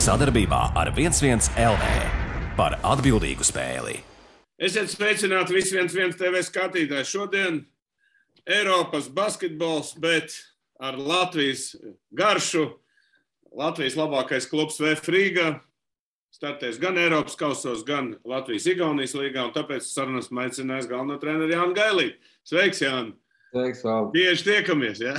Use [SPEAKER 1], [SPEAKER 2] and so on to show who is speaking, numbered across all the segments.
[SPEAKER 1] Sadarbībā ar 11 LV par atbildīgu spēli.
[SPEAKER 2] Esiet sveicināti visi 11 TV skatītāji. Šodien Eiropas basketbols, bet ar Latvijas garšu. Latvijas labākais klubs VF Rīga startēs gan Eiropas kausos, gan Latvijas-Igaunijas līgā, un tāpēc sarunas aicinājis galveno treneru Jānu Gailīti. Sveiks, Jāni!
[SPEAKER 3] Sveiks, Valdi!
[SPEAKER 2] Bieži tiekamies, jā?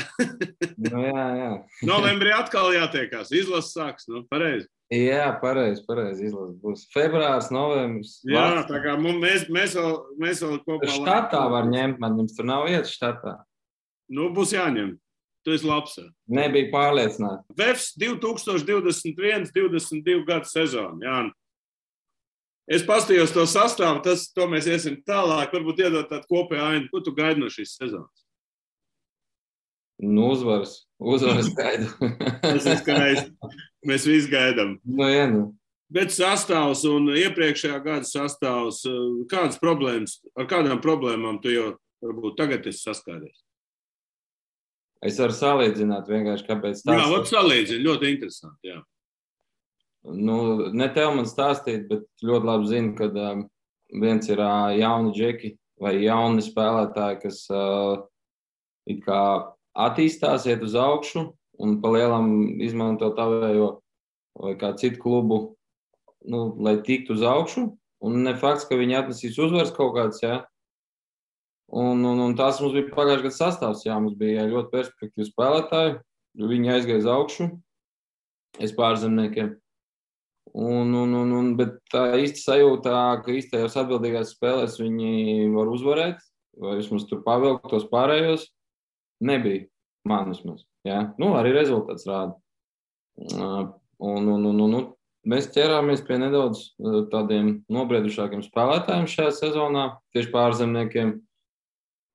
[SPEAKER 3] Jā.
[SPEAKER 2] Novembrī atkal jātiekās. Izlases sāks, pareizi?
[SPEAKER 3] Jā, pareizi izlases būs. Februārs, novembris.
[SPEAKER 2] Jā, tā kā mēs vēl kopā...
[SPEAKER 3] Štatā var ņemt, man jums tur nav vietas štatā.
[SPEAKER 2] Būs jāņem. Tu esi labs.
[SPEAKER 3] Nebija pārliecināts.
[SPEAKER 2] VEFS 2021-22 gadu sezonu, Jāni. Es pastījos to sastāvu, to mēs iesim tālāk, varbūt iedot tādu kopēju ainu. Ko tu gaidi no šīs sezonas?
[SPEAKER 3] Uzvaras gaidu.
[SPEAKER 2] Tas ir skaisti. Mēs visi gaidām.
[SPEAKER 3] Jā.
[SPEAKER 2] Bet sastāvs un iepriekšējā gada sastāvs, ar kādām problēmām tu jau varbūt tagad esi saskāries?
[SPEAKER 3] Es varu salīdzināt vienkārši, kāpēc tas.
[SPEAKER 2] Jā, salīdzini, ļoti interesanti, jā.
[SPEAKER 3] Ne tev man stāstīt, bet ļoti labi zinu, ka viens ir jauni džeki vai jauni spēlētāji, kas it kā attīstās, iet uz augšu un pa lielam izmanto tavējo vai kā citu klubu, lai tiktu uz augšu. Un ne fakts, ka viņi atnesīs uzvaras kaut kāds, jā. Un tās mums bija pagājušajā gada sastāvs, jā. Mums bija ļoti perspektīvi spēlētāji. Viņi aizgāja uz augšu. Es pārzemniekiem. Bet tā īsti sajūta, ka īstajās atbildīgās spēlēs viņi var uzvarēt, vai vismaz tur pavilkt tos pārējos, nebija man vismaz. Jā. Arī rezultāts rāda. Mēs ķerāmies pie nedaudz tādiem nobriedušākiem spēlētājiem šajā sezonā, tieši pārzemniekiem.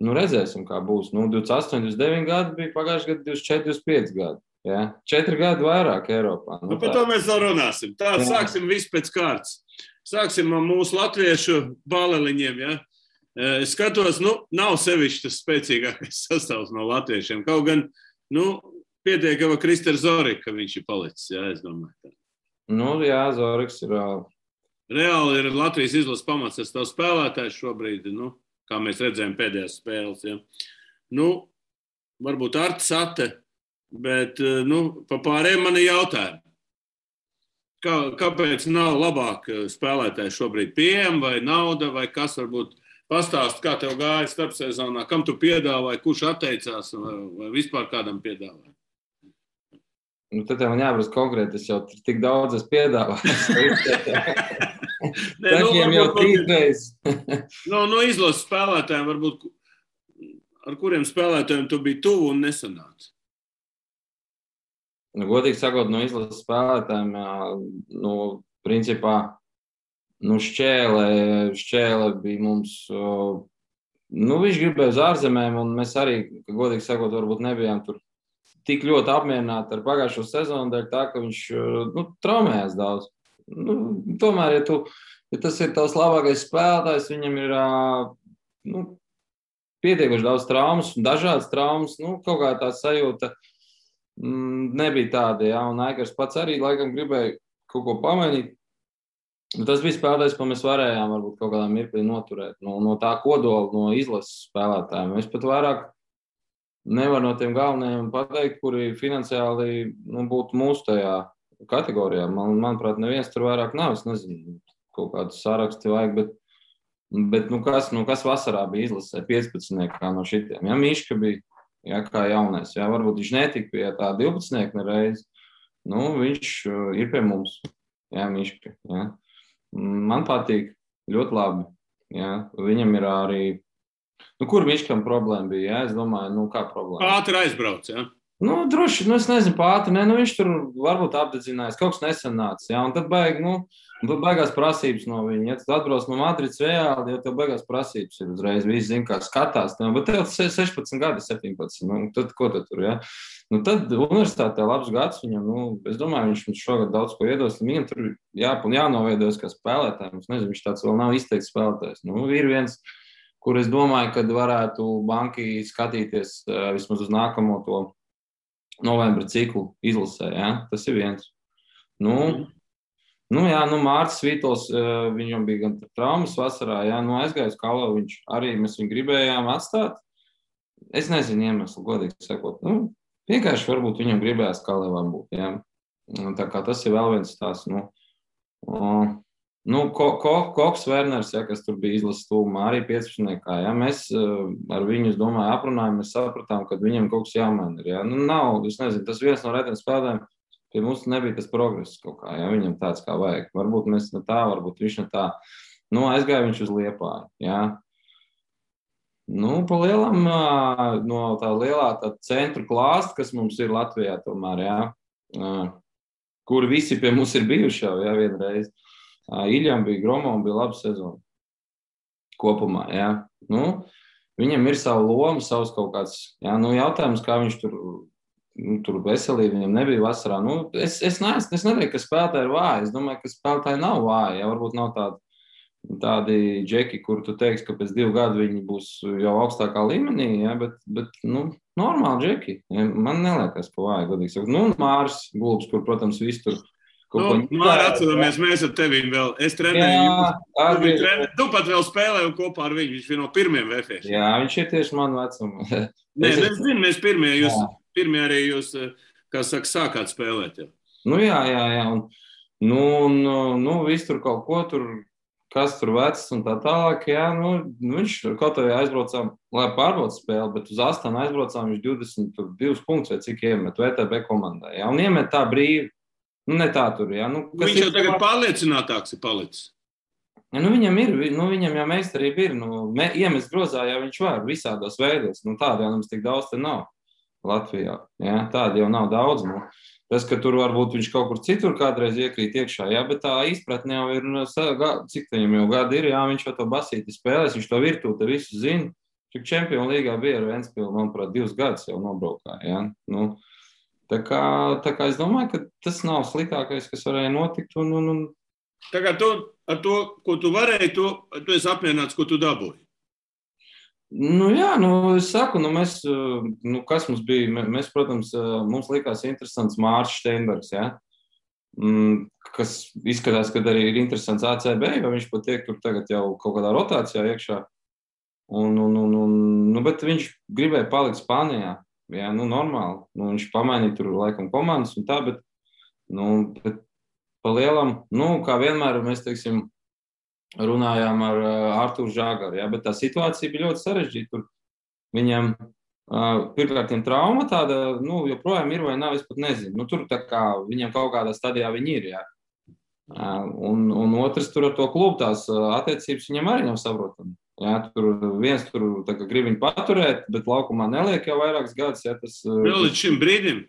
[SPEAKER 3] Redzēsim, kā būs. 28, 29 gadi bija pagājuši gadu, 24, 25 gadi. Jā. 4 gadi vairāk Eiropā.
[SPEAKER 2] Par to mēs vēl runāsim. Tā, sāksim visu pēc kārtas. Sāksim ar mūsu latviešu bāleliņiem, jā. Es skatos, nav sevišķi tas spēcīgākais sastāvs no latviešiem. Kaut gan, pietiek jau Krister Zorika, ka viņš ir palicis, jā, es domāju.
[SPEAKER 3] Jā, Zoriks ir...
[SPEAKER 2] Reāli ir Latvijas izlases pamats, es tev spēlētājs šobrīd, kā mēs redzējām pēdējās spēles, jā. Varbūt Artis Ate, bet, pa pārējiem man ir jautājumi. Kāpēc nav labāk spēlētāji šobrīd pieejami, vai nauda, vai kas varbūt pastāst, kā tev gāja starpsezonā, kam tu piedāvāji, kurš atteicās, vai vispār kādam piedāvāji?
[SPEAKER 3] Tad man jāprasa konkrēti, es jau tik daudz es piedāvāju. Takiem jau 3 reizes.
[SPEAKER 2] Izlases spēlētājiem varbūt, ar kuriem spēlētājiem tu biji tuvu un nesanāci?
[SPEAKER 3] Godīgi sakot, no izlases spēlētājiem, principā, Šķēle bija mums, viņš gribēja uz ārzemēm, un mēs arī, godīgi sakot, varbūt nebijām tur tik ļoti apmierināti ar pagājušo sezonu, dēļ tā, ka viņš traumējās daudz. Tomēr, ja tas ir tavs labākais spēlētājs, viņam ir pietiekuši daudz traumas, dažādas traumas, kaut kā tā sajūta nebija tāda, jā, un Aikars pats arī laikam gribēja kaut ko pamainīt. Tas bija spēlētājs, ko mēs varējām varbūt kaut kādā mirklī noturēt, no tā kodola, no izlases spēlētājiem. Es pat vairāk nevaru no tiem galvenajiem pateikt, kuri finansiāli būtu mūsu tajā kategorijā. Manuprāt, neviens tur vairāk nav. Es nezinu, kaut kādus saraksti vajag, bet kas vasarā bija izlasē 15 no šitiem. Jā, Miška bija, jā, kā jaunais. Jā, varbūt viņš netika pie tā 12 nereiz. Viņš ir pie mums. Jā, Miška. Jā. Man patīk ļoti labi. Jā. Viņam ir arī... kur Miškam problēma bija? Jā? Es domāju, kā problēma?
[SPEAKER 2] Ātri aizbrauc, jā?
[SPEAKER 3] Droši, es nezinu, pātri, viņš tur varbūt apdedzinājās, kaut kas nesanāca, jā, un tad baigās prasības no viņa. Ja tu atbrauc no Madrides reāli, ja tev baigās prasības ir uzreiz, visi zina, kā skatās, bet tev 16 gadi, 17, tad ko tu tur, jā? Tad universitātē labs gads viņam, es domāju, viņš šogad daudz ko iedos, viņam tur jānoveidojas kā spēlētājiem, es nezinu, viņš tāds vēl nav izteikts spēlētājs. Ir viens, kur es domāju, kad varētu banki skatīties vismaz uz nākamo to novembra ciklu izlasē, ja? Tas ir viens. Nu, jā, Mārcis Vītols, viņam bija gan traumas vasarā, jā, aizgāja uz Kalavu, mēs viņu gribējām atstāt. Es nezinu iemeslu, godīgi sakot. Vienkārši varbūt viņam gribējās Kalavā būt, jā. Tā kā tas ir vēl viens tās, Koks Werners, jā, kas tur bija izlases tūmā, arī 15. Jā, mēs ar viņu, es domāju, aprunājām, mēs sapratām, ka viņam kaut kas jāmaina ir, jā. Nav, es nezinu, tas viens no retiem spēlēm, pie mums nebija tas progress kaut kā, jā, viņam tāds kā vajag. Varbūt mēs ne tā, varbūt viņš ne tā. Aizgāja viņš uz Liepāju, jā. Pa lielam, no tā lielā tā centru klāsta, kas mums ir Latvijā tomēr, jā, kur visi pie mums ir bijuši jau, jā, vienreiz. Iļam bija Gromovam, bija laba sezona kopumā, jā. Viņam ir savu lomu, savs kaut kāds, jā, jautājums, kā viņš tur veselība viņam nebija vasarā. Es nedomāju, ka spēlētāji ir vāji. Es domāju, ka spēlētāji nav vāji. Ja? Varbūt nav tādi džeki, kur tu teiksi, ka pēc 2 gadu viņi būs jau augstākā līmenī, ja? bet normāli džeki. Ja? Man neliekas, ka vāji, godīgi sakot. Māris Gulbs, kur, protams, viss tur
[SPEAKER 2] Māri, atceramies, mēs ar tevīm vēl. Es trenēju. Tu pat vēl spēlēju kopā ar viņu. Viņš bija no pirmiem VFS.
[SPEAKER 3] Jā, viņš ir tieši man vecuma.
[SPEAKER 2] Nē, es zinu, mēs pirmie arī jūs, kā saka, sākāt spēlēt. Jau.
[SPEAKER 3] Jā. Viss tur kaut ko tur, kas tur vecs un tā tālāk. Jā, viņš kaut arī aizbraucām, lai pārbaudu spēli, bet uz Astanu aizbraucām viņš 22 punktus vai cik iemet VTB komandai. Jā, un iemet tā brīvi. Ne tā tur, jā.
[SPEAKER 2] Viņš jau tagad pārliecinātāks ir palicis.
[SPEAKER 3] Viņam ir, viņam jau meistarība ir. Iemest grozā jau viņš var visādos veidos. Tāda jau mums tik daudz te nav Latvijā. Jā, tāda jau nav daudz. Tas, ka tur varbūt viņš kaut kur citur kādreiz iekrīt iekšā, jā, bet tā izpratne jau ir, cik viņam jau gadi ir, jā, viņš jau to basīti spēlēs, viņš to virtūti visu zina. Cik Čempionu līgā bija ar Ventspilu, manuprāt, 2 gadus jau nobraukā, jā. Tā kā es domāju, ka tas nav sliktākais, kas varēja notikt.
[SPEAKER 2] Tā kā ar to, ko tu varēji, tu esi apmierināts, ko tu dabūji.
[SPEAKER 3] Jā, es saku, mēs, kas mums bija, mēs, protams, mums likās interesants Mārcis Steinbergs, jā, kas izskatās, ka arī ir interesants ACB, jo viņš pat tiek tur tagad jau kaut kādā rotācijā iekšā. Bet viņš gribēja palikt Spānijā. Jā, normāli. Viņš pamainīja tur laikam komandas un tā, bet pa lielam, kā vienmēr mēs, teiksim, runājām ar Artūru Žāgaru, jā, bet tā situācija bija ļoti sarežģīta. Tur viņam pirmkārt trauma tāda, joprojām ir vai nav, es pat nezinu. Tur tā kā viņam kaut kādā stadijā viņi ir, jā. Un otrs tur ar to klubu tās attiecības viņam arī nav saprotami. Jā, viens tur grib viņu paturēt, bet laukumā neliek jau vairākas gadus. Jā,
[SPEAKER 2] vēl līdz šim brīdim?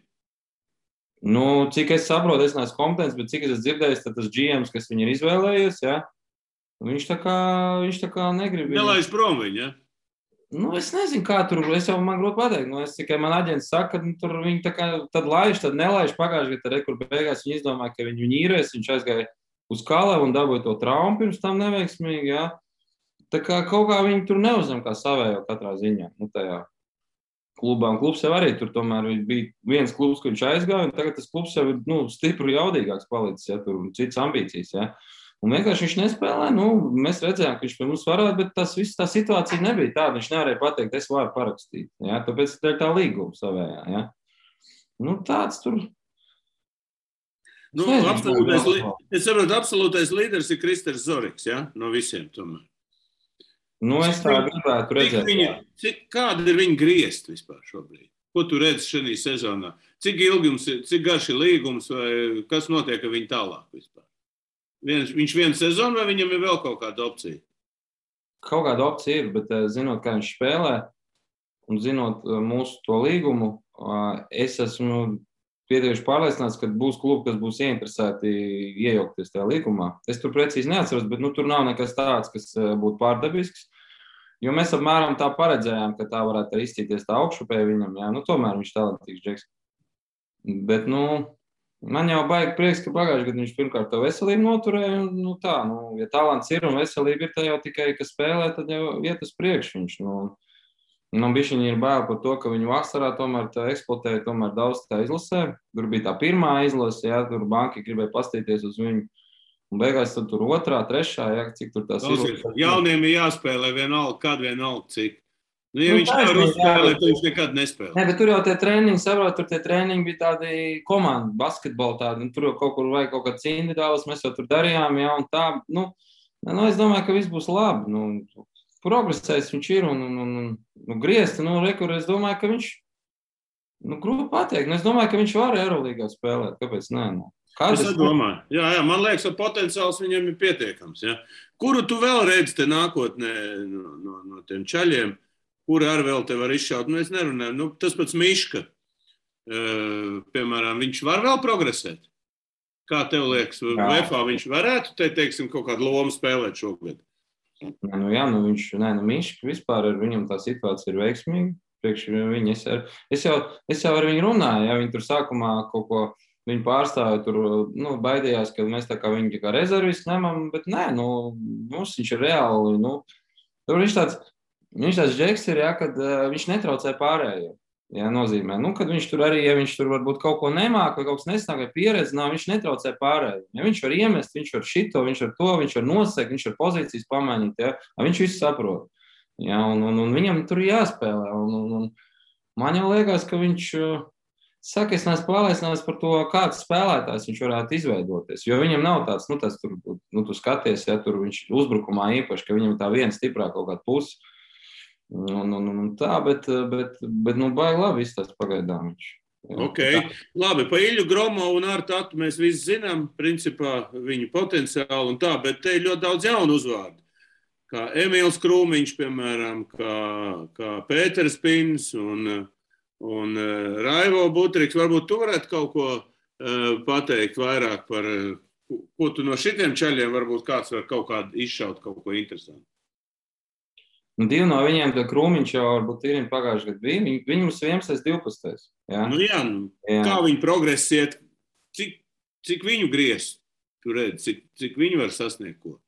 [SPEAKER 3] Cik es saprotu, es neesmu kompetents, bet cik es esmu dzirdējis, tad tas GMs, kas viņu ir izvēlējies, jā, viņš tā kā negrib.
[SPEAKER 2] Nelaiž prom viņu, jā?
[SPEAKER 3] Es nezinu, kā tur, man grūti pateikt. Es tikai man aģents saka, ka tur viņi tā kā tad laiž, tad nelaiž. Pagājuši gadu kur beigās viņi izdomāja, ka viņu īrēs, viņš aizgāja uz Kalavu un dabūja to traumu pirms tam neveiksmīgi, jā. Tā kā kaut kā viņi tur neuzņem kā savējo katrā ziņā, tajā klubā. Un klubs jau arī tur tomēr bija viens klubs, ka viņš aizgāja, un tagad tas klubs jau ir, stipri jaudīgāks palicis, ja, tur citas ambīcijas, ja. Un vienkārši viņš nespēlē, mēs redzējām, ka viņš pie mums varētu, bet tā situācija nebija tāda, viņš nevarēja pateikt, es varu parakstīt, ja, tāpēc tā līguma savējā, ja. Tāds tur.
[SPEAKER 2] Es saprotu, absolūtais līderis ir Kristers Zoriks, ja, no visiem tomēr.
[SPEAKER 3] Es tā gribētu redzēt.
[SPEAKER 2] Kāda ir viņa griezti vispār šobrīd? Ko tu redzi šajā sezonā? Cik ilgums ir, cik garš ir līgums, vai kas notiek ar viņu tālāk vispār? Viņš vienu sezonu vai viņam ir vēl kaut kāda opcija?
[SPEAKER 3] Kaut kāda opcija ir, bet zinot, kā viņš spēlē un zinot mūsu to līgumu, es esmu pietiekuši pārliecināts, ka būs klubi, kas būs ieinteresēti iejaukties tajā līgumā. Es tur precīzi neatceros, bet tur nav nekas tāds, kas būtu pārdabisks. Jo mēs apmēram tā paredzējām, ka tā varētu arī izcīties tā augšupēja viņam. Jā, tomēr viņš talantīgs džeks. Bet, man jau baigi prieks, ka pagājuši gadu viņš pirmkārt to veselību noturēja. Ja talants ir un veselība ir, tā jau tikai, ka spēlē, tad jau iet uz priekšu viņš. Bišķiņi ir bail par to, ka viņu vasarā tomēr eksploatēja tomēr daudz tā izlasē. Tur bija tā pirmā izlase, jā, tur banki gribēja pastīties uz viņu. Un beigās tur otrā, trešā, ja, cik tur tās
[SPEAKER 2] ir. Jauniem ir jāspēlē vienalga, cik. Nu, ja viņš nevar uzspēlēt, tad viņš nekad nespēlē.
[SPEAKER 3] Ne, bet tur jau tie treniņi, saprot, tur tie treniņi bija tādi komandu basketbolu tādi, tur jau kaut kur vajag kaut kāds individuāls, mēs jau tur darījām, ja, un tā, es domāju, ka viss būs labi, progresēs viņš ir, un griezti, rekur, es domāju, ka viņš, grūti pateikt, es domāju, ka viņš var Eurolīgā spēlēt, kāpēc nē,
[SPEAKER 2] Es domāju, jā, man liekas, ka potenciāls viņam ir pietiekams, ja. Kuru tu vēl redzi te nākotnē no tiem čaļiem? Kuri arī vēl te var izšaut? Es nerunāju. Tas pats Miška, piemēram, viņš var vēl progresēt? Kā tev liekas? VFA viņš varētu, teiksim, kaut kādu lomu spēlēt šogad?
[SPEAKER 3] Miška vispār ar viņam tā situācija ir veiksmīga. Priekš viņa, es jau ar viņu runāju, ja viņi tur sākumā kaut ko viņi pārstāja, tur baidījās, ka mēs tā kā viņi kā rezervisti ņemam, bet nē, mums viņš ir reāli, tur viņš tāds džeks ir, ja, kad viņš netraucē pārējiem. Jā, nozīmē. Kad viņš tur arī, ja viņš tur varbūt kaut ko nemāk vai kaut kas nesnāk vai pieredzi, viņš netraucē pārējiem. Ja viņš var iemest, viņš var šito, viņš var to, viņš var nosegt, viņš var pozīcijas pamainīt, ja. Viņš visu saprot. Ja, un viņam tur jāspēlē. Man jau liekas, ka viņš saka, es neesmu pārliecināts par to, kāds spēlētājs viņš varētu izveidoties. Jo viņam nav tāds, tu skaties, ja tur viņš uzbrukumā īpaši, ka viņam tā viena stiprā kaut kāda pusi. Tā, bet baigi labi izstāst pagaidām viņš.
[SPEAKER 2] Ok, labi, pa Iļu Gromovu un ar Tatu mēs visi zinām, principā viņu potenciālu un tā, bet te ir ļoti daudz jaunu uzvārdu. Kā Emīls Krūmiņš, piemēram, kā Pēters Pins un Raivo Butriks. Varbūt tu varētu kaut ko pateikt vairāk par, ko tu no šitiem čaļiem varbūt kāds var kaut kādu izšaut, kaut ko interesantu.
[SPEAKER 3] Divi no viņiem, tad Krūmiņš jau varbūt ir pagājuši gadu bija. Viņi mums 11. 12.
[SPEAKER 2] Kā viņi progresiet, cik viņu griez, tu redzi, cik viņi var sasniegt ko?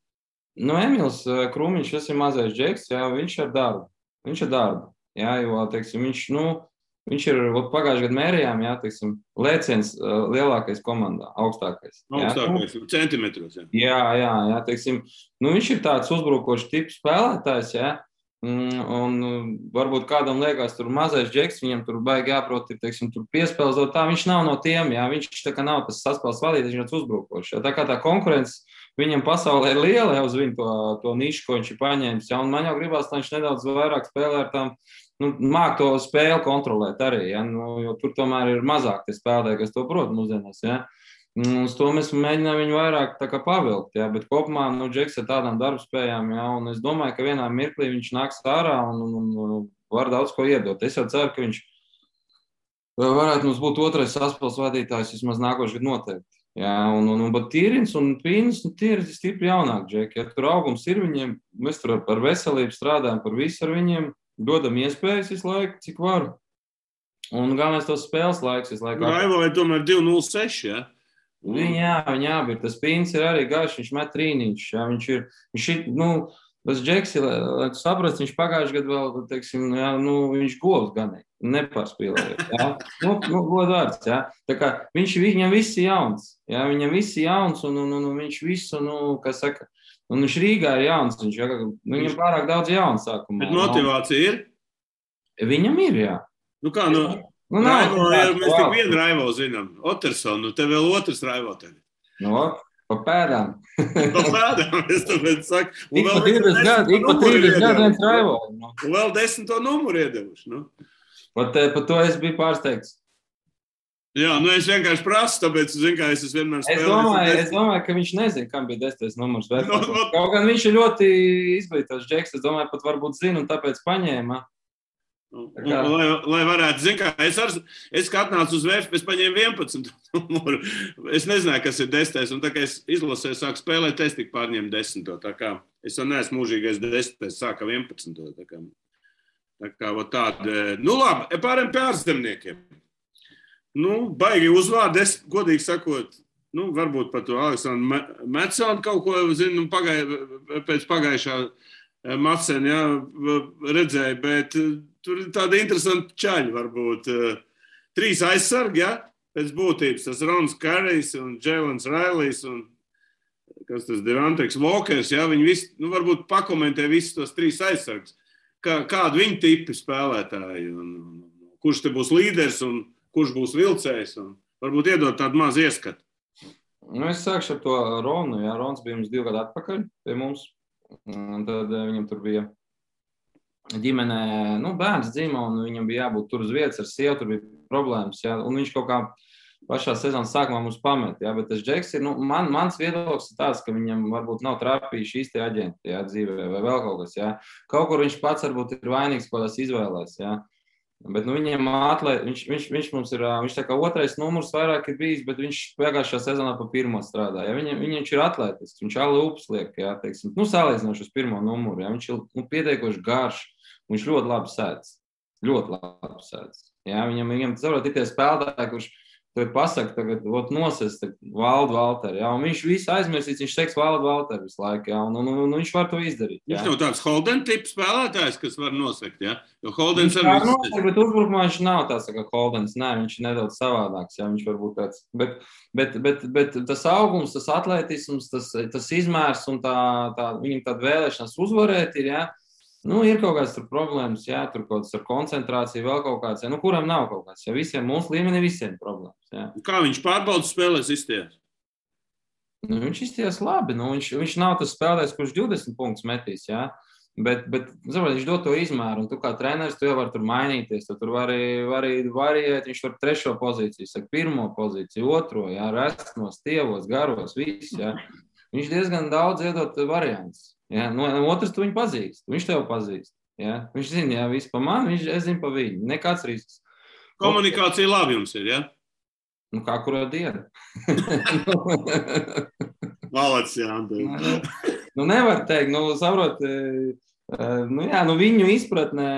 [SPEAKER 3] Emīls Krūmiņš, tas ir mazais džeks, jā, viņš ar darbu. Jā, jo, teiksim, viņš ir pagājuši gadu mērījām, jā, teiksim, lēciens lielākais komandā, augstākais.
[SPEAKER 2] Augstākais, centimetros, jā.
[SPEAKER 3] Jā, teiksim, viņš ir tāds uzbrukošs tips spēlētājs, jā, un varbūt kādam liekas tur mazais džeks, viņam tur baigi jāprot, teiksim, tur piespēlzot tā, viņš nav no tiem, jā, viņš tā kā nav tas saspēles vadītājs, viņš ir uzbrukošs, jā, tā kā tā konkurence viņam pasaulē ir liela jau uz viņu to nišu, ko viņš ir paņēmis, jā, un man jau gribās, lai viņš nedaudz vairāk spēlē ar tām, māk to spēli kontrolēt arī, ja, jo tur tomēr ir mazāk tie spēlētāji, kas to prot mūsdienās, ja. Uz to mēs mēģinām viņu vairāk tā kā pavilkt, ja, bet kopumā, Džeks ar tādām darbspējām, ja, un es domāju, ka vienā mirklī viņš nāks ārā un var daudz ko iedot. Es jau ceru, ka viņš varētu mums būt otrais saspēles vadītājs vismaz nākošais gadu noteikti. Ja, bet Tīrins un Pīns, tie ir stipri jaunāki džeki, ja tur augums ir viņiem, mēs tur par veselību strādājam, par visu ar viņiem, dodam iespējas visu laiku, cik varu. Un galvenais tos spēles laiks visu laiku.
[SPEAKER 2] Raivo vai tomēr 2-0-6, ja?
[SPEAKER 3] Viņa abi ir. Tas Pīns ir arī garš, viņš met trīniņš. Ja? Viņš ir, tas Džeks, lai tu saprast, viņš pagājuši gadu vēl, teiksim, ja, viņš govs ganīgi, nepārspīlēja. Ja? Godvārds, ja? Tā kā viņam viss ir jauns. Ja? Viņam viss ir jauns un viņš visu, kā saka, un viņš Rīgā ir jauns. Viņam pārāk daudz jauns sākumā.
[SPEAKER 2] Bet motivācija ir?
[SPEAKER 3] Viņam ir, jā.
[SPEAKER 2] Kā, Raivo, mēs tik vienu Raivo zinām. Otersonu, tev vēl otrs Raivo tevi.
[SPEAKER 3] Pa pēdām.
[SPEAKER 2] Pa pēdām, es tāpēc saku.
[SPEAKER 3] Ik pa 30 gadu viens Raivo.
[SPEAKER 2] Un vēl 10. numuru iedevuši.
[SPEAKER 3] Par to es biju pārsteigts.
[SPEAKER 2] Jā, es vienkārši prasu, tāpēc, es vienmēr spēlēju.
[SPEAKER 3] Es domāju, ka viņš nezina, kam bija 10. numurs. Kaut gan viņš ir ļoti izglītots džeks, es domāju, pat varbūt zina un tāpēc paņēma.
[SPEAKER 2] Lai varētu, es kā atnācu uz VF, es paņēmu 11. numuru. Es nezināju, kas ir 10. Un tā kā es izlasēju, sāku spēlēt, es tik pārņēmu 10. Tā kā es jau neesmu mūžīgais 10. Sāka 11. Tā kā tāda. Labi, pārējiem pie ārzemniekiem. Baigi uzvārdi, es godīgi sakot, varbūt par to Aleksandru Metsonu kaut ko zinu, pēc pagājušā Macena, jā, redzēju, bet tur ir tāda interesanta čaļa, varbūt 3 aizsargi, jā, pēc būtības, tas Rons Karijs un Džēlens Railijs un kas tas Devontriks Walkers, jā, viņi visi, varbūt pakomentē visus tos 3 aizsargus. Kādi viņi tipi spēlētāji, un kurš te būs līderis un kurš būs vilcējs, un varbūt iedot tādu mazu ieskatu.
[SPEAKER 3] Es sākšu ar to Ronu. Jā, Rons bija mums 2 gadu atpakaļ pie mums, un tad viņam tur bija ģimenē, bērns dzima, un viņam bija jābūt tur uz vietas ar sievu, tur bija problēmas, jā, un viņš kaut kā pašā sezonas sākumā mums pamet, jā, bet tas Džeks ir, mans viedoklis ir tāds, ka viņam varbūt nav trāpījuši īsti aģenti, jā, dzīvē, vai vēl kaut kas, jā. Kaut kur viņš pats varbūt ir vainīgs, ko tās izvēlēs, jā. Bet, viņam viņš mums ir, viņš tā kā 2. numurs vairāk ir bijis, bet viņš pagājušā sezonā pa 1. strādā, jā. Viņš ir atletisks, viņš alūps liek, jā, teiksim, salīdzinoši uz 1. numuru, jā. Viņš ir pietiekoši garš, viņš ļoti labi sēdz, jā. Viņam saprot, ir tie spēlētāji, kurš tev pasaka, tagad nosest Valdu Valteri, jā, un viņš visu aizmirsīs, viņš teiks Valdu Valteri visu laiku, jā, un viņš var to izdarīt. Jā.
[SPEAKER 2] Viņš nav tāds Holden tips spēlētājs, kas var nosekt, jā, jo Holdens
[SPEAKER 3] ar visu. Bet uzbrukumā viņš nav tāds, kā Holdens, nē, viņš ir nedaudz savādāks, jā, viņš var būt tāds, bet tas augums, tas atletisms, tas izmērs un viņam tāda vēlēšanās uzvarēt ir, jā. Ir kaut kāds tur problēmas, jā, tur kaut kāds ar koncentrāciju, vēl kaut kāds, jā, kuram nav kaut kāds, jā, visiem, mūsu līmenī visiem problēmas, jā.
[SPEAKER 2] Kā viņš pārbaudas spēlēs izties?
[SPEAKER 3] Viņš izties labi, viņš nav tas spēlētājs, kurš 20 punktus metīs, jā, bet saprot, viņš dod to izmēru, un tu kā treneris, tu jau var tur mainīties, tu tur vari variēt, viņš var 3. pozīciju, saka 1. pozīciju, 2, jā, resnos, tievos, garos, viss, jā. Viņš diezgan daudz iedot variants. Ja, otrs tu viņu pazīst, viņš tev pazīst. Ja. Viņš zina, ja, visu pa mani, es zinu pa viņu. Nekāds risks.
[SPEAKER 2] Komunikācija labi jums ir, ja?
[SPEAKER 3] Kā kuro dienu.
[SPEAKER 2] Malacis, jā, Andrei.
[SPEAKER 3] Nevar teikt, saprot, viņu izpratnē,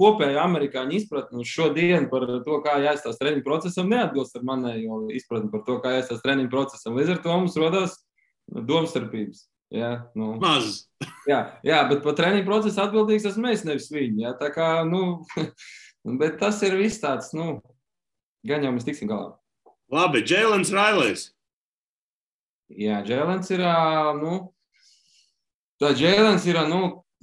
[SPEAKER 3] kopēju amerikāņu izpratni uz šodien par to, kā jāizstās treniņu procesam, neatbilst ar manējo izpratni par to, kā jāizstās treniņu procesam. Līdz ar to mums rodās domstarpības. Jā,
[SPEAKER 2] Maz.
[SPEAKER 3] Jā, bet par treniņu procesu atbildīgs esmu es, nevis viņi. Jā, tā kā, bet tas ir viss tāds, gan jau mēs tiksim galā.
[SPEAKER 2] Labi, Jēlens Railejs.
[SPEAKER 3] Jā, Jēlens ir, Jēlens ir,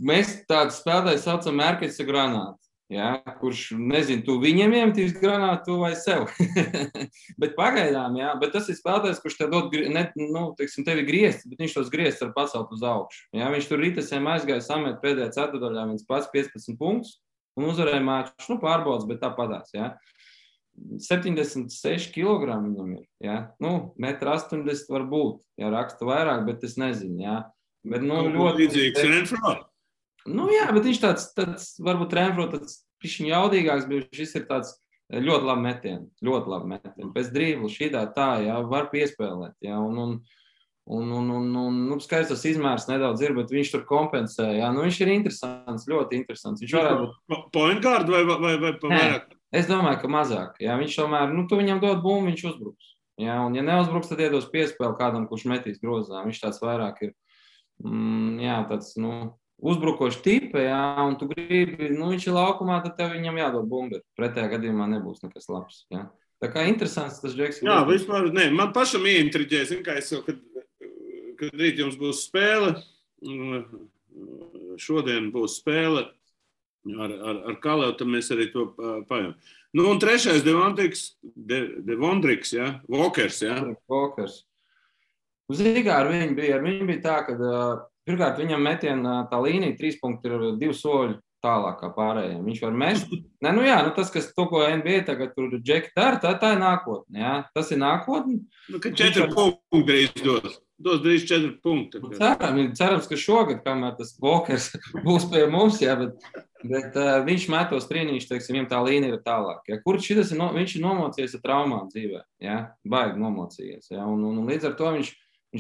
[SPEAKER 3] mēs tādu spēlētāju saucam Mērkeļa granātu. Jā, kurš, nezinu, tu viņam iemetīs granātu vai sev. Bet pagaidām, jā, bet tas ir spēlētājs, kurš te dod, tevi griezts, bet viņš tos griezts var pacelt uz augšu. Jā, viņš tur ritasēm aizgāja samet pēdējā ceturdaļā, viens pats 15 punktus un uzvarēja māču, pārbaudas, bet tā padās, jā. 76 kg viņam ir, jā. 1,80 m var būt, jā, raksta vairāk, bet es nezinu, jā. Bet,
[SPEAKER 2] ļoti līdzīgs Renfro.
[SPEAKER 3] Jā, bet viņš tāds varbūt Renfro tāds pišķiņ jaudīgāks, bet šis ir tāds ļoti labi metieni. Pēc drīblu šitā tā, jā, var piespēlēt, jā, un skaidrs tas izmērs nedaudz ir, bet viņš tur kompensē, jā, viņš ir interesants, ļoti interesants. Viņš varētu būt
[SPEAKER 2] point guard vai vairāk?
[SPEAKER 3] Es domāju, ka mazāk, jā, viņš tomēr, tu viņam dod bumbu, viņš uzbruks, jā, un ja neuzbruks, tad iedos piespēli kādam, kurš metīs grozā, viņš tāds vairāk ir, jā, tāds, uzbrukoši tipa, jā, un tu gribi, viņš ir laukumā, tad tev viņam jādod bumbi. Pretējā gadījumā nebūs nekas labs, jā. Tā kā interesants tas Džeks.
[SPEAKER 2] Jā, vispār, man pašam ieintriģē, kā es jau, kad rīt jums būs spēle, šodien būs spēle ar Kaleu, tad mēs arī to pajām. Un 3. Devontriks, jā, Walkers, jā.
[SPEAKER 3] Walkers. Zīgā ar viņu bija tā, ka pirmkārt, viņam metiena tā līnija 3 punkti ir 2 soļi tālāk kā pārējiem. Viņš var mest. Tas, kas to, ko NBA tagad tur Džeki dara, tā ir nākotne. Jā. Tas ir nākotne.
[SPEAKER 2] Ka 4 punkti drīz dos. Dos drīz 4 punkti.
[SPEAKER 3] Cerams, ka šogad, kamēr tas Walkers būs pie mums, jā, bet viņš metos trīnīši, teiksim, viņam tā līnija ir tālāk. Jā. Kur šitas viņš ir nomocījies ar traumām dzīvē. Jā. Baigi nomocījies. Jā. Un līdz ar to viņš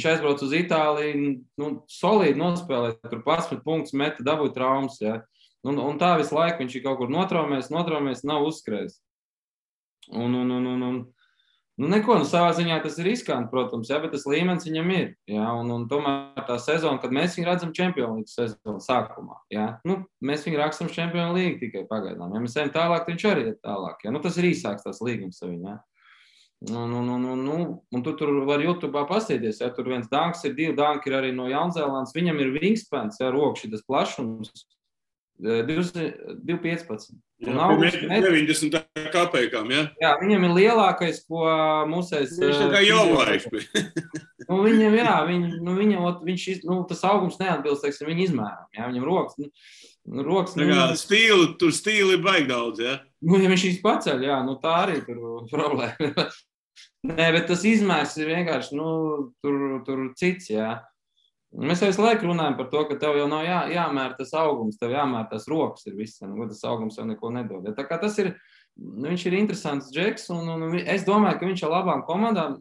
[SPEAKER 3] aizbrauc uz Itāliju, solīdi nospēlēt, tur 11 punktus meta, dabūja traumas, jā. Un tā visu laiku viņš ir kaut kur notraumēs, nav uzskrējis. Neko, savā ziņā tas ir riskanti, protams, jā, bet tas līmenis viņam ir, jā. Un tomēr tā sezona, kad mēs viņu redzam Champions League sezonu sākumā, jā. Mēs viņu rakstam Champions League tikai pagaidām. Ja mēs ejam tālāk, viņš arī ir tālāk, jā. Tas ir īsāks tās līgums ar viņu, jā. Un tu tur var YouTube'ā pastīties, ja tur viens danks ir, 2 danki ir arī no Jaunzēlandes, viņam ir wingspans, ja rokši tas plašums, 2,15.
[SPEAKER 2] Jā, 90 kapekām, ja?
[SPEAKER 3] Jā, viņam ir lielākais, ko mūsēs...
[SPEAKER 2] Viņš tā kā jovaiks bija.
[SPEAKER 3] Viņam, jā, tas augums neatbilst, teiksim, viņa izmēram, jā, viņam rokas...
[SPEAKER 2] Tur stīli ir baigi daudz, ja?
[SPEAKER 3] Ja viņš šīs paceļ, jā, tā arī tur problēma. Nē, bet tas izmērs ir vienkārši, tur cits, jā. Mēs visu laiku runājam par to, ka tev jau nav jāmēr tas augums, tev jāmēr tas rokas ir viss, tas augums jau neko nedod. Tā kā tas ir, viņš ir interesants džeks, un es domāju, ka viņš ar labām komandām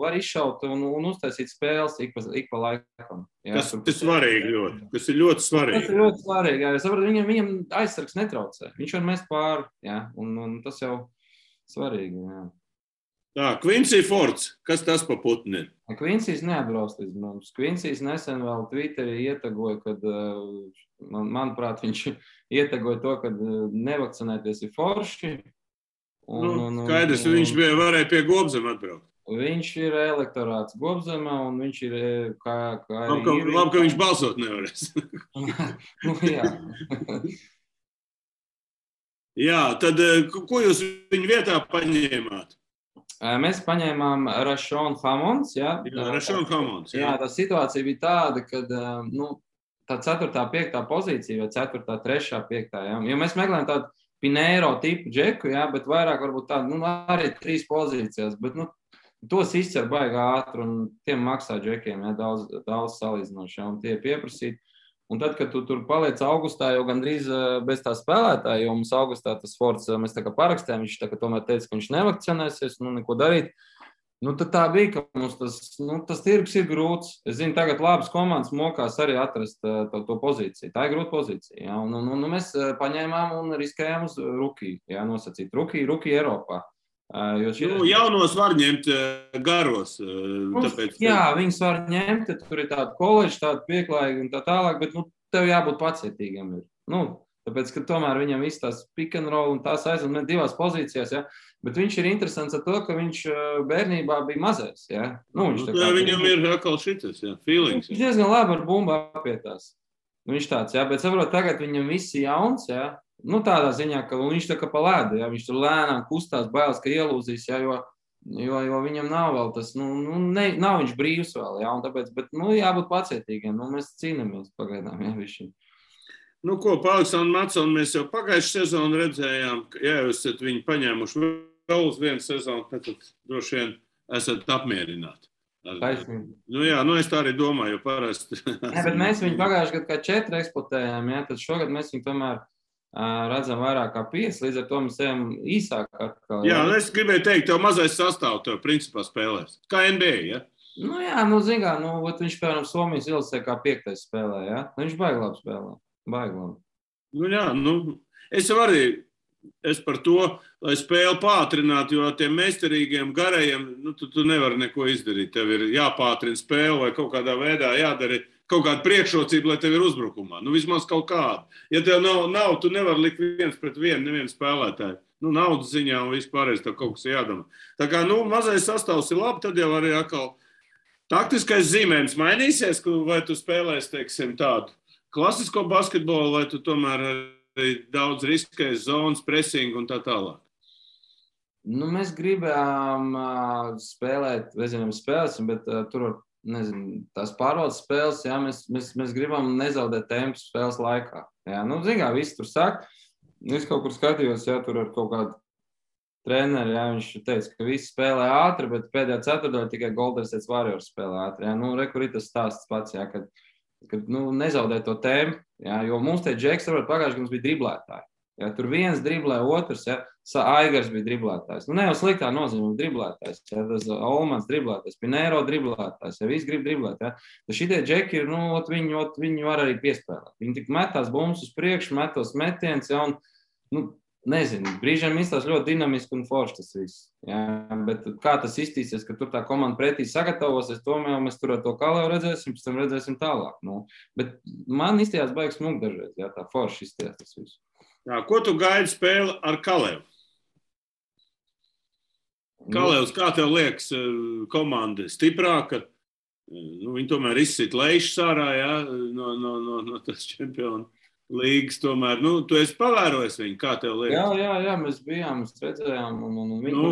[SPEAKER 3] var izšaut un uztaisīt spēles ik pa laikam. Jā,
[SPEAKER 2] tas ir svarīgi ļoti. Tas ir ļoti svarīgi.
[SPEAKER 3] Tas ir ļoti svarīgi, jā. Es saprotu, viņam aizsargs netraucē. Viņš var mest pāri, jā, un tas jau svarīgi, jā.
[SPEAKER 2] Tā, Quincy Fords, kas tas pa putni ir?
[SPEAKER 3] Quincy's neatbrauc līdz mums. Quincy's nesen vēl Twitterī ietagoja, kad, manuprāt, viņš ietagoja to, kad nevakcinēties ir forši.
[SPEAKER 2] Skaidrs, viņš varēja pie Gobzema atbraukt.
[SPEAKER 3] Viņš ir elektorāts Gobzemā, un viņš ir kā
[SPEAKER 2] labi, ka viņš balsot nevarēs.
[SPEAKER 3] Jā.
[SPEAKER 2] Jā, tad ko jūs viņu vietā paņēmāt?
[SPEAKER 3] Mēs paņēmām Rashon Hammonds. Jā,
[SPEAKER 2] Rashon Hammonds.
[SPEAKER 3] Jā, tā situācija bija tāda, kad tā 4., 5. pozīcija vai 4., 3., 5. Jā, jo mēs meklējam tādu Pinheiro tipu džeku, jā, bet vairāk varbūt tādu, arī 3 pozīcijās, bet, tos izcer baigi ātri un tiem maksā džekiem, jā, daudz salīdzinoši, jā, un tie pieprasīt. Un tad, kad tu tur paliec augustā, jau gandrīz bez tā spēlētāja, jo mums augustā tas Fords, mēs tā kā parakstējām, viņš tā kā tomēr teica, ka viņš nevakcinēsies, neko darīt. Tad tā bija, ka mums tas tirgus ir grūts. Es zinu, tagad labas komandas mokās arī atrast to pozīciju. Tā ir grūta pozīcija. Jā. Un mēs paņēmām un riskējām uz rookie, jā, nosacīt. Rookie Eiropā.
[SPEAKER 2] Jaunos var ņemt garos. Tāpēc,
[SPEAKER 3] jā, viņus var ņemt, tur ir tāda koledža, tāda pieklājīga un tā tālāk, bet tev jābūt pacietīgam. Tāpēc, ka tomēr viņam viss tās pick and roll un tās aizved 2 pozīcijās, ja? Bet viņš ir interesants ar to, ka viņš bērnībā bija mazais. Ja?
[SPEAKER 2] Viņam ir atkal šitas, ja? Feelings.
[SPEAKER 3] Viņš diezgan labi ar bumbu apietās. Viņš tāds, ja? Bet saprot, tagad viņam viss ir jauns, ja? Tādā ziņā, ka viņš tā kā pa ledu, ja? Viņš tur lēnām kustās, bailes, ka ielūzīs, ja? Jo viņam nav vēl tas, nav viņš brīvs vēl, ja? Un tāpēc, bet, jābūt pacietīgiem, mēs cīnāmies pagaidām, ja, višķi.
[SPEAKER 2] Ko, pa Aleksandru Matsonu mēs jau pagājušu sezonu redzējām, ka, ja jūs esat viņu paņēmuši vēl uz vienu sezonu, tad droši vien esat apmierināti. Jā, es tā arī domāju, jo parasti.
[SPEAKER 3] Jā, bet mēs viņu pagājuši gadu kā 4 eksploatējām, ja? Tad šogad mēs viņu tomēr redzam vairāk kā 5, līdz ar to mēs ejam īsāk atkal.
[SPEAKER 2] Jā, es gribēju teikt, tev mazais sastāv, tev principā spēlēs. Kā NBA, ja?
[SPEAKER 3] Zin kā, viņš, piemēram, Somijas ilasē kā 5. spēlē, ja? Viņš baigi labi spēlē. Baigi labi. Es par to, lai spēli pātrinātu, jo tiem meistarīgiem garajiem, tu nevari neko izdarīt. Tev ir jāpātrina spēle vai kaut kādā veidā jādara kaut kāda priekšrocība, lai tev ir uzbrukumā. Vismaz kaut kāda. Ja tev nav, tu nevari likt 1-1 nevienu spēlētāju. Naudas ziņā un vispārējais tev kaut kas jādomā. Tā kā, mazais sastāvs ir labi, tad jau arī atkal taktiskais zīmējums mainīsies, vai tu spēlēsi, teiksim, tādu klasisko basketbolu, vai tu tomēr arī daudz riskēs zonas, presingu un tā tālāk? Mēs gribējām spēlēt, spēlēsim, bet tur var, tās pārvaldes spēles, jā, mēs gribam nezaudēt tempu spēles laikā. Jā, kā visi tur saka, es kaut kur skatījos, jā, tur ar kaut kādu treneri, jā, viņš teica, ka visi spēlē ātri, bet pēdējā ceturtdaļā tikai Golden State Warriors spēlē ātri. Jā, kur ir tas stāsts pats, jā, kad nezaudē to tēmu, jā, jo mums te džeks, pagājuši, ka mums bija driblētāji. Jā, tur viens driblē, otrs, jā, Aigars bija driblētājs. Ne jau sliktā nozīmē driblētājs, jā, tas Olmans driblētājs, Pinheiro driblētājs, jā, visi grib driblēt, jā. Tad šitie džeki ir, viņi var arī piespēlēt. Viņi tik metās bumbas uz priekšu, metos metiens, jā, un, nezinu, brīžiem izstās ļoti dinamiski un forši tas viss. Jā, bet kā tas iztīsies, ka tur tā komanda pretī sagatavosies, tomēr mēs tur ar to Kalēvu redzēsim, pēc tam redzēsim tālāk. Bet man izstījās baigs smuk dažreiz, jā, tā forši izstījās tas viss.
[SPEAKER 2] Jā, ko tu gaidi spēli ar Kalēvu? Kalevs, kā tev liekas, komanda stiprāka? Viņi tomēr izsit Leišas ārā, jā, no tas čempionu līgas tomēr. Tu esi pavērojis viņu, kā tev liekas?
[SPEAKER 3] Jā, mēs bijām, mēs redzējām.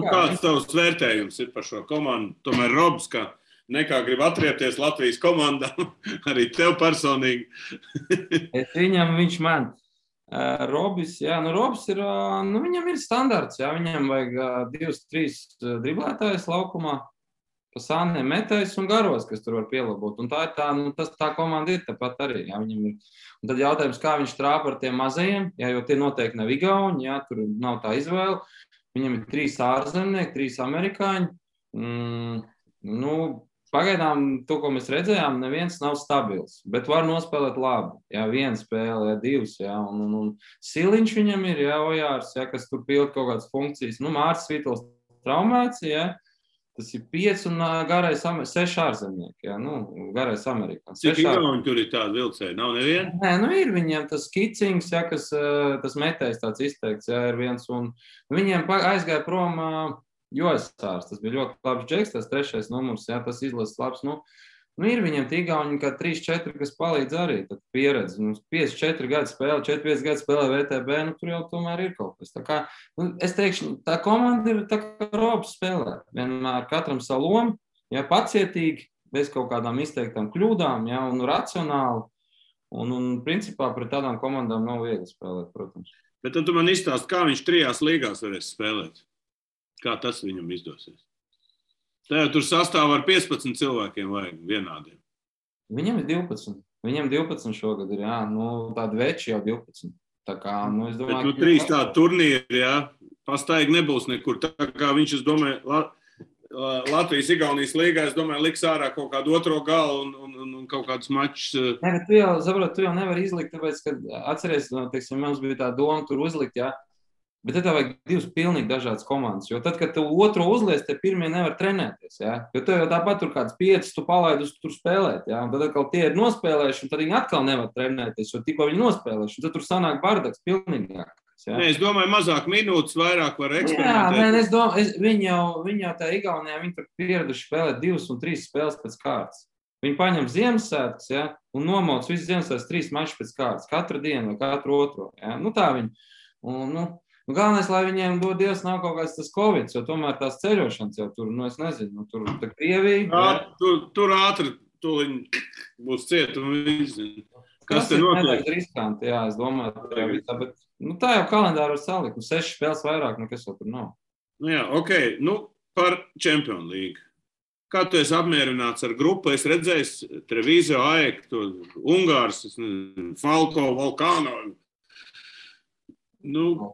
[SPEAKER 2] Kāds tavs vērtējums ir par šo komandu? Tomēr Robs, kā nekā grib atriepties Latvijas komandā, arī tev personīgi.
[SPEAKER 3] Viņš man. Robis, Robs ir, viņam ir standarts, viņam vajag 2-3 driblētājs laukumā, pa sāniem metējs un garos, kas tur var pielabot. Un tā komanda ir tāpat arī, viņam ir. Un tad jautājums, kā viņš trāpa ar tiem mazajiem, jo tie noteikti nav igauni, tur nav tā izvēle. Viņam ir 3 ārzemnieki, 3 amerikāņi. Pagaidām to, ko mēs redzējām, neviens nav stabils, bet var nospēlēt labi. Viena spēle, 2, un Siliņš viņam ir, Ojārs, kas tur pild kaut kādas funkcijas. Mārcis Vītols traumēts, tas ir 5 un garais 6 ārzemnieki, garais amerikāns.
[SPEAKER 2] Cik igauni tur ir tādi vilcēji? Nav neviena?
[SPEAKER 3] Nē, ir viņiem tas Kicings, kas tas metējs tāds izteikts, ir viens, un viņiem aizgāja prom Josārs, tas bija ļoti labs džeks, tas 3. numurs, tas izlases labs. Ir viņiem tīgauni, kā 3-4, kas palīdz arī, tad pieredze. 5-4 gadu spēle, 4-5 gadu spēlē VTB, tur jau tomēr ir kaut kas. Tā kā, es teikšu, tā komanda ir tā kā Robs spēlē. Vienmēr katram savu lomu, pacietīgi, bez kaut kādām izteiktām kļūdām, un racionāli. Un principā pret tādām komandām nav viegli spēlēt, protams.
[SPEAKER 2] Bet tad tu man izstāsti, kā viņš 3 līgās varēs spēlēt? Kā tas viņam izdosies? Tev tur sastāv ar 15 cilvēkiem vajag vienādiem.
[SPEAKER 3] Viņam ir 12. Viņam 12 šogad ir, tādi veči jau 12. Tā kā, es domāju...
[SPEAKER 2] Bet 3 tādi turnīri, pastaigi nebūs nekur. Tā kā viņš, es domāju, Latvijas-Igaunijas līgā, es domāju, liks ārā kaut kādu otro galu un kaut kādus mačus.
[SPEAKER 3] Nē, bet tu jau nevari izlikt, tāpēc, ka atceries, teiksim, mums bija tā doma tur uzlikt, Bet tad vajag 2 pilnīgi dažādas komandas, jo tad, kad tu otro uzliec, te pirmie nevar trenēties, jo tev jau tāpat tur kāds 5 tu palaidus tur spēlēt, un tad atkal tie ir nospēlējuši, un tad viņi atkal nevar trenēties, jo tikko viņi nospēlējuši, un tad tur sanāk bardaks pilnīgāks.
[SPEAKER 2] Nē, es domāju, mazāk minūtes, vairāk var eksperimentēt.
[SPEAKER 3] Es domāju, viņi jau tā Igaunijā, viņi tur pieraduši spēlēt 2 un 3 spēles pēc kārtas. Viņi paņem Ziemassvētkus, un nomauc visu Ziemassvētkus 3 mačus pēc kārtas, katru dienu vai katru otro, Tā viņi, galvenais, lai viņiem dod Dievs nav kaut kāds tas Covid, jo tomēr tās ceļošanas jau tur, es nezinu, tur tā Krievija.
[SPEAKER 2] Tur ātri tuliņ būs ciet un visi. Kas te notiek?
[SPEAKER 3] Tas ir riskanti, es domāju, bet tā jau kalendāru var salikt, 6 spēles vairāk, nekas jau tur nav.
[SPEAKER 2] Par Čempionu līgu. Kā tu esi apmierināts ar grupu? Es redzēju Trevizo, AEK, Ungārs, Falko, Volkāno.
[SPEAKER 3] Ko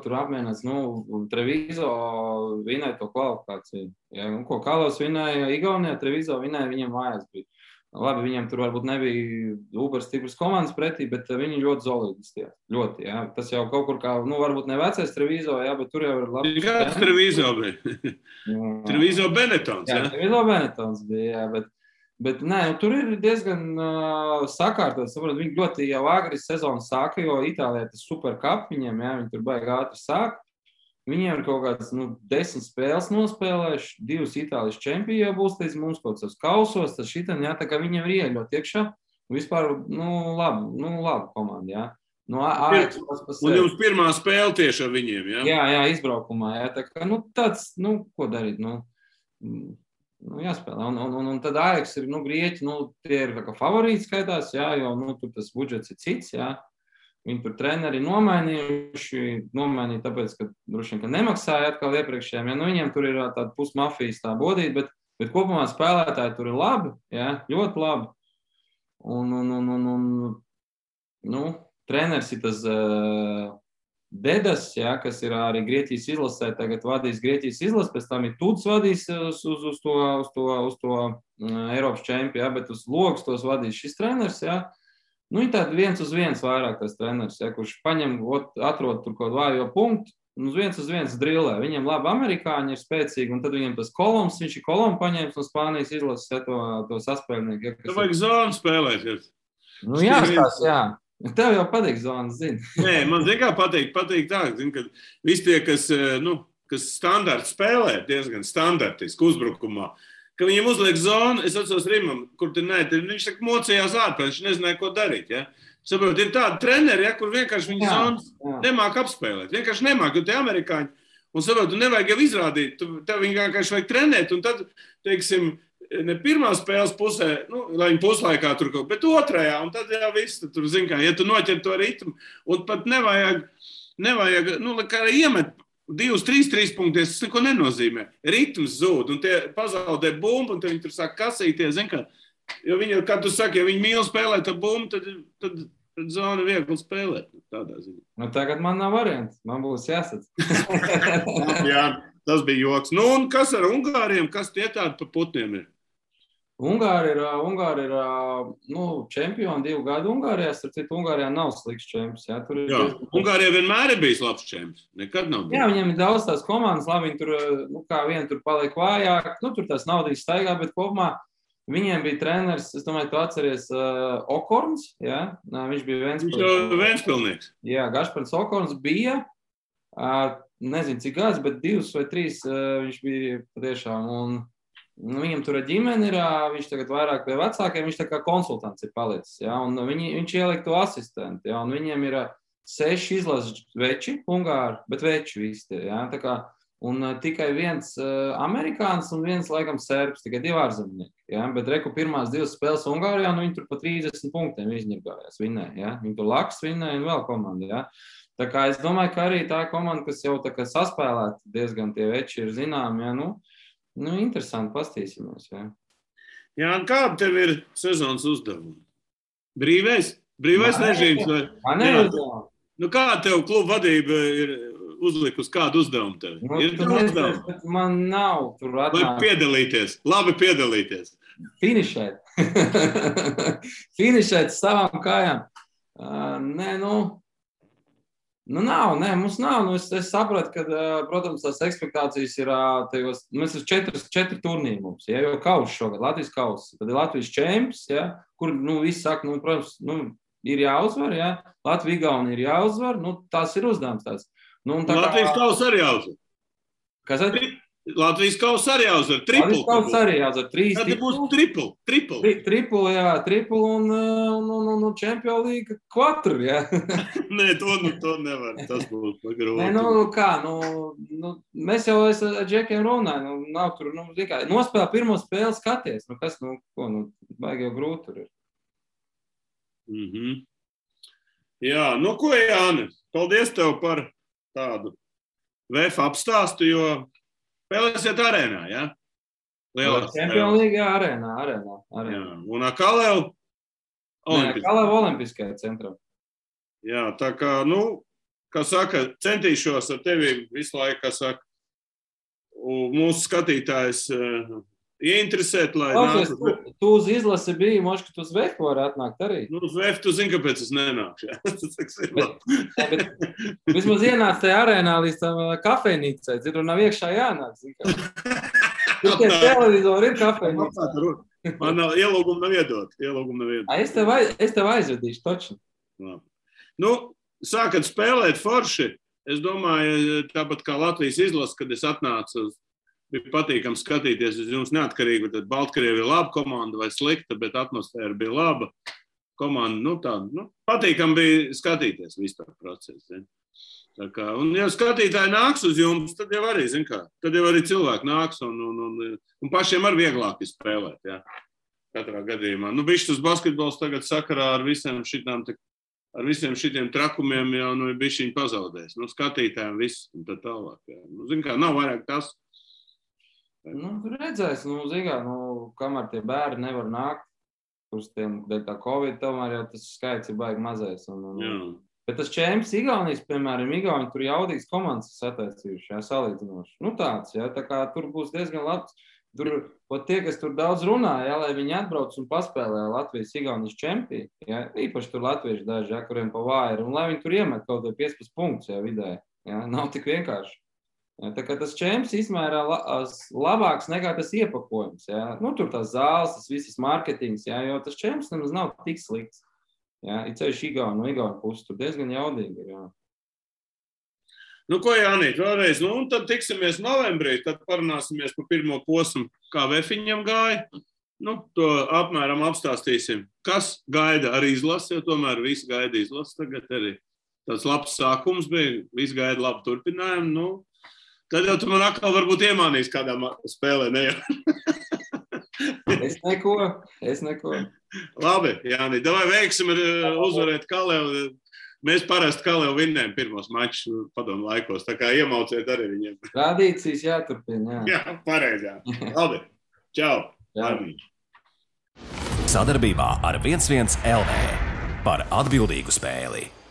[SPEAKER 3] tur apmienāts? Trevizo vinēja to kvalifikāciju. Ko Kalos vinēja Igaunijā, Trevizo vinēja, viņiem mājās bija. Labi, viņiem tur varbūt nebija super stipras komandas pretī, bet viņi ļoti solidi izstījās. Ļoti, Tas jau kaut kur kā, varbūt ne vecais Trevizo, bet tur jau ir labi.
[SPEAKER 2] Kāds Trevizo bija? Trevizo Benetons,
[SPEAKER 3] Trevizo Benetons bija, Bet tur ir diezgan sakārtots. Viņi ļoti jau agri sezonu sāka, jo Itālijā tas supercup viņiem, viņi tur baigi ātri sāk. Viņiem ir kaut kāds 10 spēles nospēlējuši, 2 Itālijas čempioni jau būs līdz mums kaut kāds kausos, tad šitam, tā kā viņiem ir ieļot iekšā. Vispār, labi komanda,
[SPEAKER 2] Un jums pirmā spēle tieši ar viņiem,
[SPEAKER 3] Jā, izbraukumā, Tā kā, tāds, ko darīt, jāspēlē. Un tad AEK ir, Grieķi, tie ir kā favorīti skaitās, jo, tur tas budžets ir cits, Viņi tur treneri nomainīja tāpēc, ka droši vien, ka nemaksāja atkal iepriekšējiem, viņiem tur ir tāda pusmafijas tā bodīta, bet kopumā spēlētāji tur ir labi, ļoti labi. Treneris ir tas Dedas, kas ir arī Grieķijas izlasē, tagad vadīs Grieķijas izlasi, pēc tam ir Tuds vadīs uz to Eiropas čempionu, bet uz logus tos vadīs šis treneris, Ir tāda 1-1 vairāk tas treneris, kurš paņem, atrod tur kaut vājo punktu, un uz 1-1 drillē. Viņiem labi amerikāņi ir spēcīgi, un tad viņiem tas Koloms, viņš ir Kolomu paņēmis no Spānijas izlases to saspēlnieku.
[SPEAKER 2] Tev vajag zonu spēlēt.
[SPEAKER 3] Tev jau patīk zonas, zini.
[SPEAKER 2] Nē, man zin kā patīk tā, ka visi tie, kas, kas standarti spēlē, diezgan standartiski uzbrukumā, ka viņiem uzliek zonu, es atceros Rimam, kur viņš tā mocījās ārpēc, viņš nezināja, ko darīt. Ja? Saprot, ir tādi treneri, ja, kur vienkārši viņi zonas nemāk apspēlēt. Vienkārši nemāk, jo tie amerikāņi. Un saprot, tu nevajag jau izrādīt, tev viņi vienkārši vajag trenēt. Un tad, teiksim, ne pirmā spēles pusē, lai viņi puslaikā tur kaut, bet otrajā. Un tad jau viss, tur zin kā, ja tu noķer to ritmu. Un pat nevajag kā iemet 2-3 punkties, tas neko nenozīmē. Ritms zūd, un tie pazaudē bumbu, un tad viņi tur sāk kasīties, zin kā. Jo viņi, kā tu saki, ja viņi mīl spēlēt ar bumbu, tad zona viegli spēlēt. Tādā ziņā.
[SPEAKER 3] Nu, tagad man nav variants. Man būs jāsats.
[SPEAKER 2] Jā, tas bija joks. Nu, un kas ar Ungāriem? Kas tie tādi pa putniem ir?
[SPEAKER 3] Ungāri ir čempioni 2 gadu Ungārijā. Starp citu, Ungārijā nav slikts čemps. Jā,
[SPEAKER 2] Ungārijā vienmēr ir bijis labs čemps. Nekad nav bijis.
[SPEAKER 3] Jā, viņiem ir daudz tās komandas. Labi, viņi tur, kā viena tur paliek vājāk. Tur tās naudīs staigā, bet kopumā viņiem bija treneris, es domāju, tu atceries Okorns, jā? Viņš bija
[SPEAKER 2] Ventspilnieks.
[SPEAKER 3] Jā, Gašpars Okorns bija, nezinu cik gads, bet 2 vai 3 viņš bija patiešām, un viņam tur ģimene ir, viņš tagad vairāk pie vecākiem, viņš tā kā konsultants ir palicis, jā? Un viņš ieliek to asistentu, jā? Un viņiem ir 6 izlases veči, Ungāri, bet veči visi tie, jā? Tā kā un tikai viens amerikānis un viens, laikam, serbs, tikai 2 ārzemnieki. Ja? Bet reku pirmās 2 spēles Ungārijā, viņi tur pa 30 punktiem izņirgājās, vinēja. Ja? Viņi tur Laks vinēja un vēl komanda. Ja? Tā kā es domāju, ka arī tā komanda, kas jau tā kā saspēlēta, diezgan tie veči ir zinām, ja? Interesanti, pastīsimies. Ja?
[SPEAKER 2] Jā, un kāda tev ir sezonas uzdevuma? Brīvais režīms?
[SPEAKER 3] Man neuzdevumu.
[SPEAKER 2] Kā tev kluba vadība ir uzlikus kādu uzdevumu tev? Ir uzdevumi?
[SPEAKER 3] Man nav tur atnāk.
[SPEAKER 2] Labi piedalīties.
[SPEAKER 3] Finišēt. Finišēt savām kājām. Mums nav. Es sapratu, ka, protams, tās ekspektācijas ir tajos, mēs ir 4 turnīri mums, ja, jo kauss šogad, Latvijas kauss, tad ir Latvijas čemps, ja, kur, visi saka, protams, ir jāuzvar, ja, Latvija Igauni ir jāuzvar, tās ir uzdevums tāds.
[SPEAKER 2] Latvijas kausa arī jāuzvar.
[SPEAKER 3] Kas tad?
[SPEAKER 2] Latvijas kausa arī jāuzvar. Triplu.
[SPEAKER 3] Latvijas kausa arī jāuzvar. 3
[SPEAKER 2] Tad būs triplu.
[SPEAKER 3] Triplu, un Champions League 4, jā.
[SPEAKER 2] Nē, to nevar. Tas būs grūti.
[SPEAKER 3] Nē, mēs jau ar Džekiem runājam, nav tur, nospēlē pirmo spēli skaties. Baigi jau grūti tur ir.
[SPEAKER 2] Mhm. Jā, ko, Jāni, paldies tev par tādu VF apstāstu, jo spēlēsiet arēnā, ja?
[SPEAKER 3] Champions League, jā, arēnā.
[SPEAKER 2] Jā, un Kalev
[SPEAKER 3] Olimpiskajā centrā.
[SPEAKER 2] Jā, tā kā, kā saka, centīšos ar tevi visu laiku, kā saka, mūsu skatītājs ieinteresēt, lai nāku.
[SPEAKER 3] Tu uz izlasi biji, moši, ka tu uz Vefu vari atnākt arī.
[SPEAKER 2] Uz Vefu tu zini, kāpēc es nenākšu.
[SPEAKER 3] Bet vismaz ienāc tajā arēnā līdz tam kafejnīcai, tur nav iekšā jānāk. Tur tie televizori ir kafejnīcā.
[SPEAKER 2] Man ielūgumu nav iedot.
[SPEAKER 3] Es tev aizvedīšu, toču.
[SPEAKER 2] Sākat spēlēt forši. Es domāju, tāpat kā Latvijas izlase, kad es atnācu uz bija patīkami skatīties uz jums neatkarīgi, tad Baltkrievi ir laba komanda vai slikta, bet atmosfēra bija laba. Komanda, patīkami bija skatīties vispār procesu. Tā kā, un ja skatītāji nāks uz jums, tad jau arī, tad jau arī cilvēki nāks un pašiem ar vieglāk spēlēt, jā. Katrā gadījumā. Bišķi tas basketbols tagad sakarā ar visiem šitiem trakumiem jau ir bišķiņi pazaudējis. Skatītājiem viss un tā tālāk, jā. Nav vairāk tas.
[SPEAKER 3] Redzēs, kamēr tie bērni nevar nākt, kurš tiem dēļ tā Covid, tomēr jau tas skaits ir baigi mazais. Bet tas čemps Igaunijas, piemēram, Igauni tur jaudīgs komandas sataisījuši, jā, salīdzinoši. Tāds, jā, tā kā tur būs diezgan labs. Tur, tie, kas tur daudz runā, jā, lai viņi atbrauc un paspēlē Latvijas Igaunijas čempī, jā, īpaši tur latvieši daži, jā, kuriem pa vāji ir, un lai viņi tur iemet kaut vai 15 punktus, jā, vidē, jā, nav tik vienkārši. Tā kā tas čemps izmērā labāks nekā tas iepakojums. Ja? Tur tās zāles, tas viss marketings, ja? Jo tas čemps nemaz nav tik slikts. Ja? Ir ceļš Igaunu pusi, tur diezgan jaudīgi ir. Ja?
[SPEAKER 2] Nu, ko, Jānīt, vēlreiz, un tad tiksimies novembrī, tad parunāsimies par pirmo posmu, kā Vefiņam gāja. To apmēram apstāstīsim. Kas gaida arī izlasi, jo tomēr visi gaida izlasi. Tagad arī tāds labs sākums bija, visi gaida labu turpinājumu. Tad jau tu man atkal varbūt iemānīs kādā spēlē, ne jau?
[SPEAKER 3] Es neko.
[SPEAKER 2] Labi, Jānīt, davai veiksim uzvarēt Kalevu. Mēs parasti Kalevu vinnējam pirmos mačus padomu laikos, tā kā iemauciet arī viņiem.
[SPEAKER 3] Tradīcijas jāturpina, jā.
[SPEAKER 2] Jā, pareizi, jā. Labi, čau.
[SPEAKER 1] Sadarbībā ar 11 LV par atbildīgu spēli.